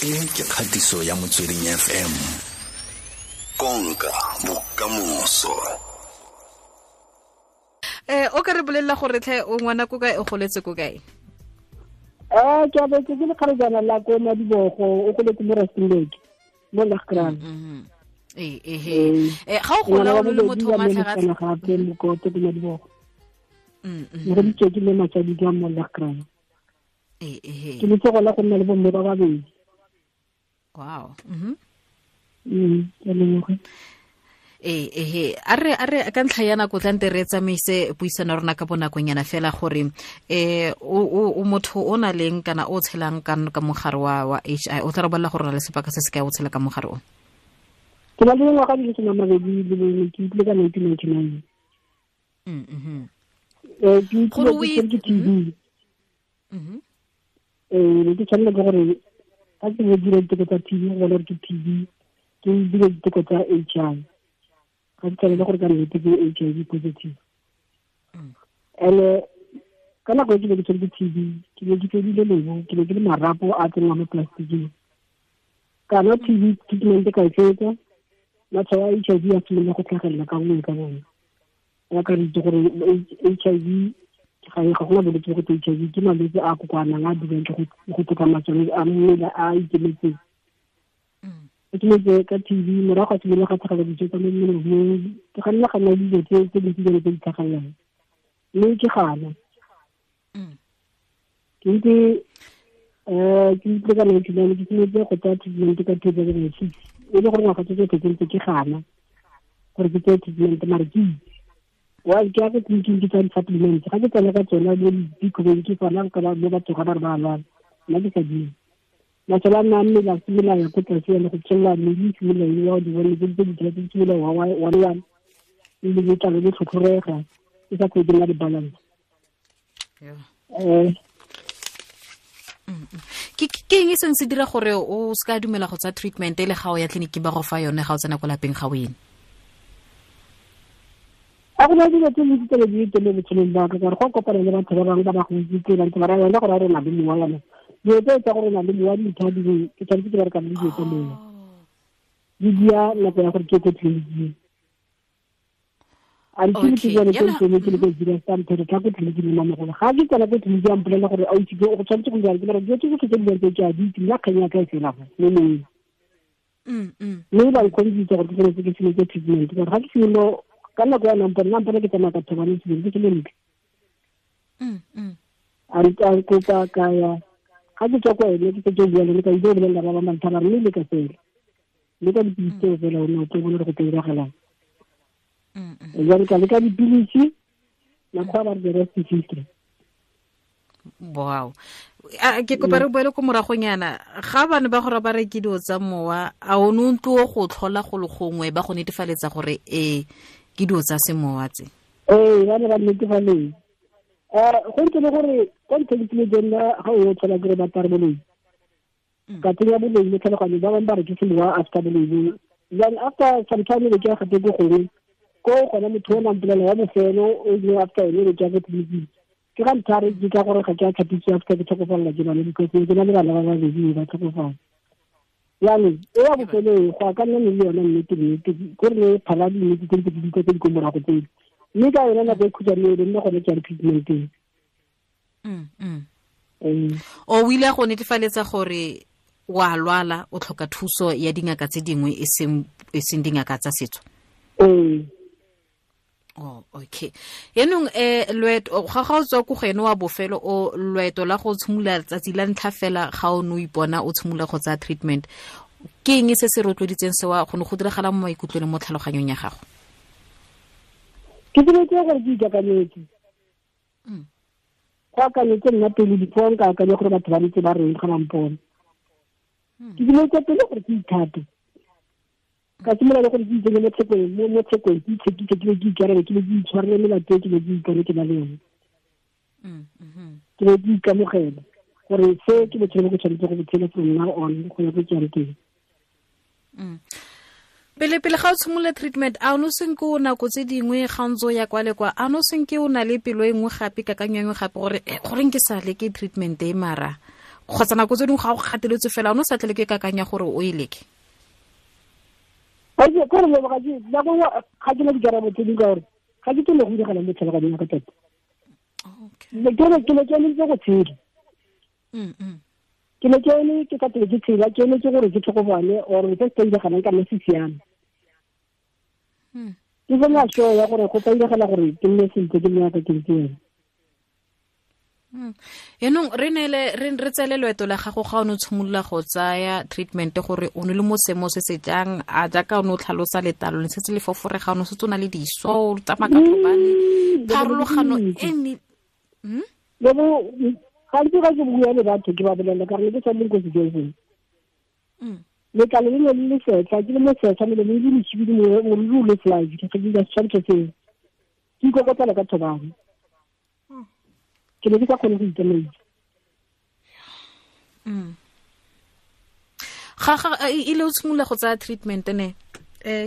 E ke kgatiso ya Motsweding FM. Konka bokamoso. O ka re bolelela gore tlhe o ngwana ko kae, o goletse ko kae? Ke abetse ke lekgarejana la ko Madibogo, o goletse mo Rustenburg, mo Lagkraal. Ga o gola o le motho o matlhagatlhaga gape mokoto ko Madibogo. Ne re ditse ke le matsadi ka mo Lagkraal. Ke le tsogola go nna le bomme ba babedi. Wow. Ke leboga. A re ka ntlha ya nako tla nte re tsamaise puisano rona ka bonakonyana fela gore o motho o na leng kana o tshelang ka mogare wa HI, o tla re bolela gore o na le sebaka se se kae o tshela ka mogare o? Ke na le dingwaga di le 21, ke utlwile ka 1999. Ke utlwile ke TB. Ne ke tshwanela ke gore ga ke dira diteko tsa TB go bona gore ke TB, ke dira diteko tsa HI. Ga ke tshwanele gore ka nnete ke HIV positive. And ka nako e ke ne ke tshwere ke TB, ke ne ke fedile lebo, ke ne ke le marapo a tsenngwa mo plasticing. Ka nwa TB treatment ka e fetsa, matshwao a HIV a simolola go tlhagelela ka bongwe ka bongwe. Ya ka re itse gore HIV ga gona bolwetse bo go HIV, ke malwetse a kokoanang a dirang ke go tlhoka masole a mmele a ikemetseng. Ke simolotse ka TB, morago ga simolola ga tlhagela dijo tsa mo mmeleng, ke ga nna ga nna dijo tse dintsi jalo tse di tlhagelelang, mme ke gana. Ke ntse ke utlwe ka 1999, ke simolotse go tsaya treatment ka 2006, e le gore ngwaga tse tsotlhe ke ntse ke gana gore ke tseye treatment, mare ke itse wa ke ya ko tleliniking ke tsaya di-supplements, ga ke tsena ka tsona mo dikobeng ke tsona ka mo batho ga ba re ba lwala, nna ke sa dire. Masole a nna a mmele a simolola ya ko tlase ya le go tswelela mmele e simolola e wa di bone tse di tse di simolola wa one one, le letlalo le tlhotlhorega, e sa kgone ke nna le balance. Ke eng e seng se dira gore o se ka dumela go tsaya treatment e le ga o ya tleliniking ba go fa yone ga o tsena ko lapeng ga o ene? A go na dilo tse dintsi tse di teng mo botshelong ba ka, gore go kopana le batho ba bangwe ba ba go itse ba ntse ba raya gore a re na le mowa yana. Dilo tse tsa gore na le mowa di ntha di ke tshwanetse ke bereka le dilo tsa mowa. Di dia nako ya gore ke ko tleliniking. Until ke bone ke ntse ke le ko dira sa ntho tla ko tleliniking mo mamogolo. Ga ke tsena ko tleliniking a mpolelela gore a itse go tshwanetse go dira ke re dilo tse tsotlhe tse di tse ke a di itse, nna kgang ya ka e fela go mo moweng. Mme ba nkgodisitse gore ke tshwanetse ke simolotse treatment, gore ga ke simolo ka nako ya nampone ke tsamaya ka thobane ke ke le ntle. A re ka kopa ka ya ga ke tswa kwa ene ke setse ke bua le ka ile go bolelela ba ba mantha ba re mme le ka fela. Le ka dipilisi tseo fela o ne o tlo bona gore go tlo diragalang. Jalo ka leka dipilisi, makgwa ba re the rest is history. Wow. Ke kopa re boele ko moragonyana, ga bane ba gore ba re ke dilo tsa mowa, a o ne o ntlo go tlhola go le gongwe ba go netefaletsa gore ke dilo tsa semowa tse? Ee, ba ne ba netefaletsa. Go ntse le gore kwa ntlheng ke le nna ga o tlhola ke re ba tare boloi. Ka tsenya boloi mo tlhaloganyong, ba bangwe ba re ke semowa after boloi. Then after some time ke ya gape ko gongwe, ko gona motho o nang mpolelela wa bofelo o ile after ene re ke ya ko tleliniking. Ke ga ntlha re ke ka gore ga ke a tlhapisiwa after ke tlhokofalela ke bana, because ke na le bana ba babedi ba tlhokofala. Jaanong e ya bofelo e go a ka nna le yone nnete nnete, ko re ne phala dinnete tse di tse di ko morago tsele. Mme ka yone nako e khutshwane e nne gone ke ya treatment-eng. O ile go netefaletsa gore wa lwala, o tlhoka thuso ya dingaka tse dingwe e seng dingaka tsa setso? Ee. Oh, okay. Yaanong loeto ga o tswa ko go ene wa bofelo, o loeto la go tshimolola letsatsi la ntlha fela ga o ne o ipona o tshimolola go tsaya treatment, ke eng se se rotloeditseng sewa go ne go diragala mo maikutlong le mo tlhaloganyong ya gago? Ke simolotse gore ke ikakanyetse. Go akanyetse nna pele before nka akanya gore batho ba ntse ba reng ga ba mpona. Ke simolotse pele gore ke ithate. Ka simolola le gore ke itsenye mo tshekong, mo tshekong, ke itshekise, ke be ke ikarebe, ke be ke itshwarele melato e ke be ke ipone ke na le yone. Ke be ke ikamogela gore se ke botshelo bo ke tshwanetse go bo tshela from now on go ya ko ke yang teng. Pele ga o tshimolola treatment, a o ne o senke o nako tse dingwe ga o ntse o ya kwa le kwa, a o ne o senke o na le pelo e nngwe gape, kakanyo e nngwe gape gore goreng ke sa leke treatment e mara Kgotsa nako tse dingwe ga o gateletswe fela o ne o sa tlele ke kakanya gore o e leke. Kore leboga nako nngwe ga ke na dikarabo tse dingwe ka gore ga ke tsene go diragala mo tlhaloganyong ya ka tota. Ke ne ke emetse go tshela. Ke ne ke eme ke ka pele ke tshela, ke emetse gore ke tlhokofale or se se diragalang ka nna se siame. Ke sena sure ya gore go tla diragala gore ke nne sentle ke nne yaka ke ntse yana. Yaanong re neele re tsele loeto la gago ga o ne o tshimolola go tsaya treatment gore o ne le mo seemo se se jang, a jaaka o ne o tlhalosa letlalo le setse le foforega, o ne o setse o na le diso, o tsamaya ka thobane, pharologano e ne gantsi ga ke bua le batho ke ba bolelela ka gore ke sa leng ko sejong. Letlalo le ne le le setlha, ke le mo setlha, melomo e le mosibidi, moriri o le fly, ke ke dira setshwantsho seo. Ke ikokotlela ka thobane. Ke ne ke sa kgone go itsamaisa. Ga ile o tshimolola go tsaya treatment ne,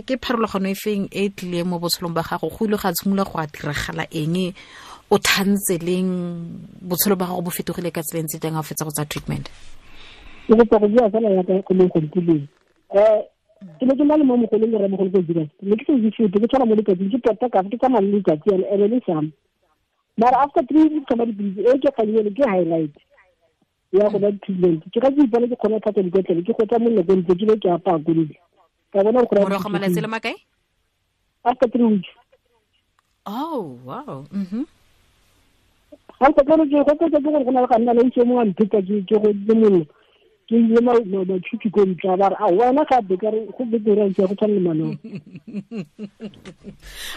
ke pharologano e feng e tlileng mo botshelong ba gago? Go ile ga tshimolola go a diragala eng? O thantse leng? Botshelo ba gago bo fetogile ka tsela e ntse jang ga o fetsa go tsaya treatment? Ke kopa go bua fela yaka go leng gontileng. Ke ne ke na le mo mogolong le rramogolo ko Zeerust. Ne ke sa itse sepe, ke tshwana mo letsatsing, ke tota ka fa, ke tsamaya le letsatsi yana, ene le sama. Mara after 3 weeks ka dipilisi, e ke kganyele ke highlight ya go ba treatment. Ke ga ke ipona ke kgona go tlhatswa dikotlele, ke gotsa mollo ko ntle, ke be ke apaya ko ntle. Ka bona gore Morago ga malatsi a le makae? After 3 weeks. Oh, wow. Ga ke tsone ke go tsetse ke gore go na le ga nna le itse mongwe a mpheta ke go le mollo. Ke ile matšhuthu ko ntle, ba re, a wena gape ka re go betere ke go tshwana le manong.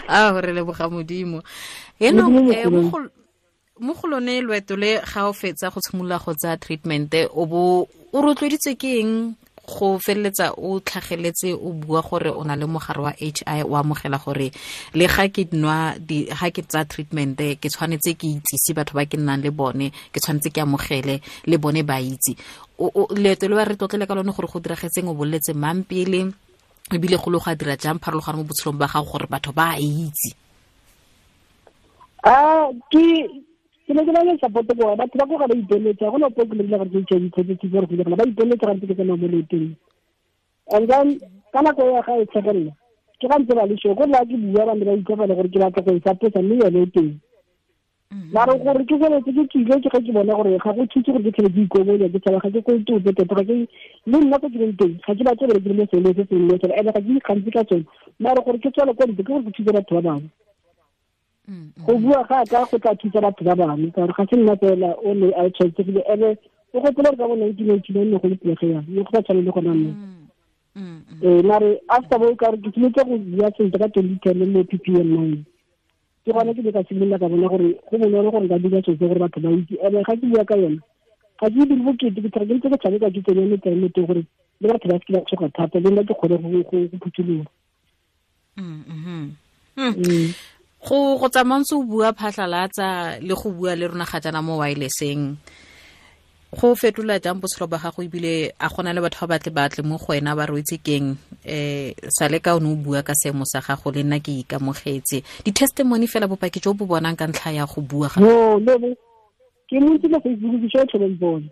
A re leboga Modimo. Yaanong, mo go lone loeto le ga o fetsa go tshimolola go tsaya treatment, o bo o rotloeditswe ke eng go feleletsa o tlhageletse o bua gore o na le mogare wa HI, o amogela gore le ga ke nwa di, ga ke tsaya treatment ke tshwanetse ke itsise batho ba ke nnang le bone, ke tshwanetse ke amogele le bone ba itse. Leeto le ba re tlotlele ka lone gore go diragetseng, o boleletse mang pele, ebile go le go a dira jang pharologano mo botshelong ba gago gore batho ba a itse? Ke ne ke na le support ko batho ba ko ga ba ipeletsa, go na po ke le gore ke HIV positive gore go diragala, ba ipeletsa ga ntse ke tsamaya mo leetong. And then ka nako ya ga e tlhagelela, ke ga ntse ba le sure, gore la ke bua ba ne ba utlwa fela gore ke batla go e support-a, mme yone e teng. Mara gore ke feletse ke tswile, ke ga ke bona gore ga go thuse gore ke tlhole ke ikobonya, ke tshaba, ga ke kope ope tota, ga ke le nna ko ke leng teng, ga ke batle gore ke le mo seemong se sengwe fela, and-e ga ke ikgantshe ka tsone. Mara gore ke tswele kwa ntle, ke gore ke thuse batho ba bangwe. Go bua ga ka go tla thusa batho ba bangwe, ka gore ga se nna fela o ne a tshwaetsegile, ene o gopola gore ka bo 1989 ne go le pelegi yang, ne go sa tshwane le gona mme. Mare after bo ka gore ke simolotse go bua sentle ka 2010 mo PPM 9. Ke gone ke ne ka simolola ka bona gore go bonolo gore nka dira selo se gore batho ba itse. Ene ga ke bua ka yone, ga ke dire bokete, ke tlhoka ke ntse ke tshameka ke tsenya metlae mo teng gore le batho ba seke ba tshoga thata, le nna ke kgone go phuthuloga. Go tsamaya ntse o bua phatlhalatsa le go bua le rona ga jaana mo wireless-eng, go fetola jang botshelo ba gago, ebile a gona le batho ba batle batle mo go wena ba re o itse keng, sale ka o ne o bua ka seemo sa gago le nna ke ikamogetse, di-testimony fela bopaki jo bo bonang ka ntlha ya go bua ga No, no, no. Ke mo ntse mo Facebook ke tshwere tlhobeng bone.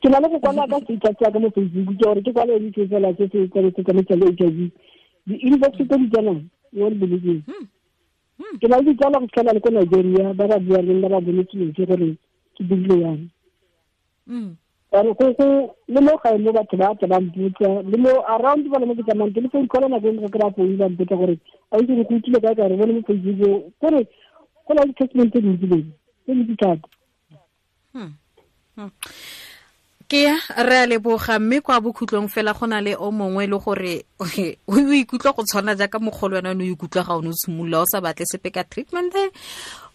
Ke na le go kwala ka status ya ka mo Facebook, ke gore ke kwale eng ke fela se se tshwanetse tsa le HIV. Di-inbox tse di tsenang, you won't believe me. Ke na le ditsala go fitlhela le ko Nigeria, ba ba buang le nna ba bonetse dilo tse gore ke dirile yang. Ka re go le mo gae mo batho ba tla ba mpotsa, le mo around ba le mo ke tsamayang teng, le phone call nako e nngwe ke kry-a phone ba mpotsa gore, a itse gore go utlwile kae, ka re bone mo Facebook, kore go na le di-testament tse dintsi le tse dintsi thata. Ke ya, re a leboga, mme kwa bokhutlong fela go na le o mongwe le gore o ikutlwa go tshwana jaaka mogolo wena o ne o ikutlwa ga o ne o tshimolola o sa batle sepe ka treatment.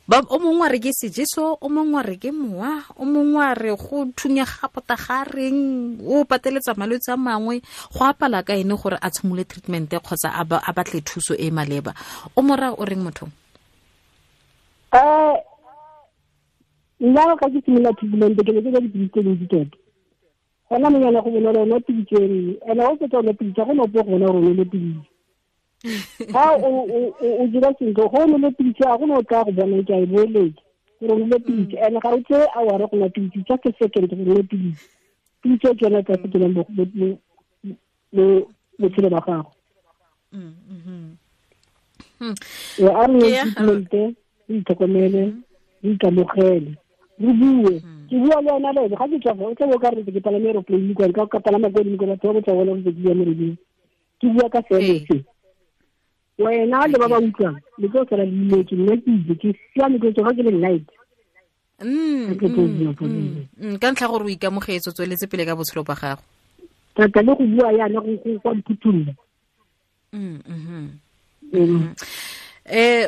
Ba, o mongwe a re ke sejeso, o mongwe a re ke mowa, o mongwe a re go thunya ga pota ga reng, o pateletsa malwetse a mangwe, go apala ka ene gore a tshimolole treatment kgotsa a batle thuso e maleba. O mo raya o reng motho? Nna ga ke simolola treatment ke ne ke ja dipilisi tse dintsi tota. Gona mo nyana go bonolo o nwa pilisi e nngwe, and ha o fetsa o nwa pilisi, ga go na ope go bona gore o nole pilisi. Ha o dira sentle, go o nole pilisi, ga go na o tla go bona ke a e boeletsa. Gore o nwe pilisi and ga o tseye hour go nwa pilisi, just a second go nwe pilisi. Pilisi e ke yone e tla fetolang botshelo ba gago. A re nwe treatment, re itlhokomele, re ikamogele, re bue. Ke bua le wena le ga ke tswa o tla bo ka re ke palame aeroplane kwa ka palama ko godimo kwa batho ba botsa bona gore ke bua mo radio. Ke bua ka seemo se. Wena le ba ba utlwang le tlo sala le imetse, nna ke itse ke siame ke tsoga ke le night. Ka ntlha gore o ikamogetse, o tsweletse pele ka botshelo ba gago. Thata le go bua yana go kwa mphuthulla.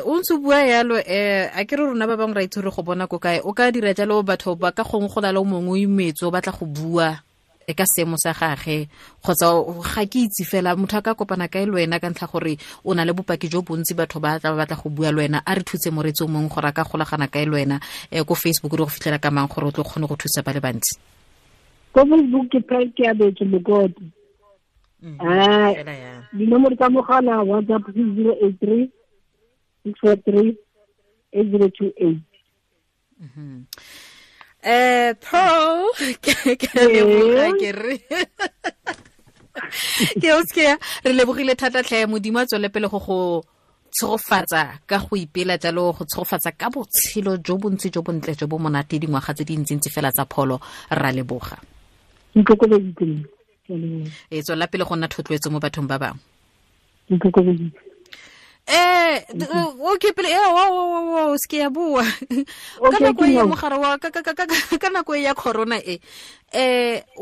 O ntse o bua yalo, a ke re rona ba bangwe ra itse gore go bona ko kae, o ka dira jalo batho ba ka gongwe go na le o mongwe o imetse o batla go bua e ka seemo sa gage, kgotsa ga ke itse fela motho a ka kopana kae le wena ka ntlha gore o na le bopaki jo bontsi, batho ba tla ba batla go bua le wena. A re thutse moreetsi o mongwe gore a ka golagana kae le wena, ko Facebook re go fitlhela ka mang gore o tlo kgone go thusa ba le bantsi? Ko Facebook ke Pearl Keabetswe Mokoto. Dinomoro tsa mogala WhatsApp ke 083 643 8028. Pearl, ke leboga ke re. Ke o seke re lebogile thata tlhe, Modimo a tswele pele go go tshegofatsa ka go ipela jalo, go tshegofatsa ka botshelo jo bontsi jo bontle jo bo monate dingwaga tse dintsintsi fela tsa pholo. Ra leboga. E tswela pele go nna thotloetso mo bathong ba bangwe. Okay pele o seke ya bua ka nako e mogare wa ka nako e ya corona e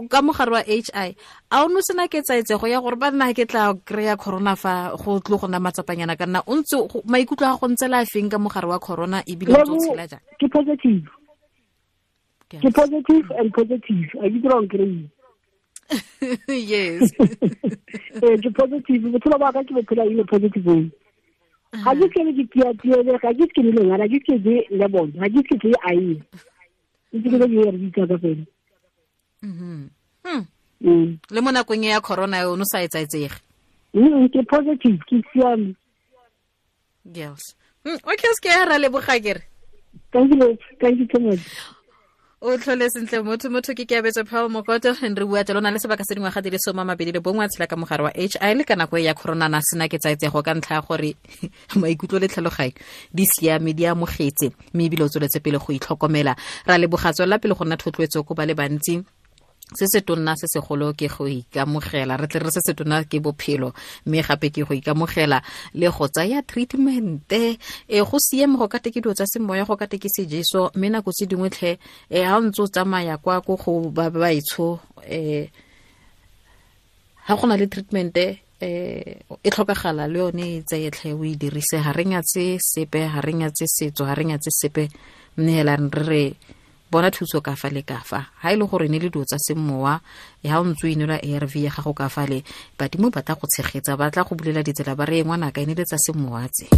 ka mogare wa HI a o no sena ke tsaetsego ya gore ba nna ke tla kry-a corona fa go tlo go nna matsapanyana ka nna o ntse maikutlo a go ntse la feng ka mogare wa corona ebile o ntse o tshela jang? Ke positive. Ke positive and positive. A ke dira kry. Yes. Ke positive. Botshelo ba ka ke bophela in a positive way. Ga ke ke ke tia ga ke ke le ngwana, ga ke ke le bona, ga ke ke ke ai. Ke ke ke re ditsa ka fela. Le mo nakong ya corona o no sa etsaetsege. Ke positive, ke siame. Girls. Okay, se ke ra leboga ke re. Thank you, thank you so much. O tlhole sentle motho ke Keabetswe Pearl Mokoto, re bua jalo na le sebaka se dingwaga di le 21 a tshela ka mogare wa HI le ka nako ya corona na sena ke tsaetsego ka ntlha ya gore maikutlo le tlhaloganyo di siame, di amogetse, mme ebile o tsweletse pele go itlhokomela. Ra leboga, tswelela pele go nna thotloetso ko ba le bantsi. Se se tonna se segolo ke go ikamogela, re tle re se se tonna ke bophelo, mme gape ke go ikamogela le go tsaya treatment. Go siame go ka te ke dilo tsa semoya, go ka te ke sejeso, mme nako tse dingwe tlhe ha o ntse o tsamaya kwa ko go ba baetsho, ha go na le treatment e tlhokagala le yone e tseye tlhe o e dirise. Ha re nyatse sepe, ha re nyatse setso, ha re nyatse sepe, mme hela re re bona thuso ka fa le ka fa. Ha e le gore ne le dilo tsa semowa, ha o ntse o inwela ARV ya gago ka fa le, badimo ba tla go tshegetsa, ba tla go bulela ditsela, ba re ngwanaka e ne le tsa semowa tse.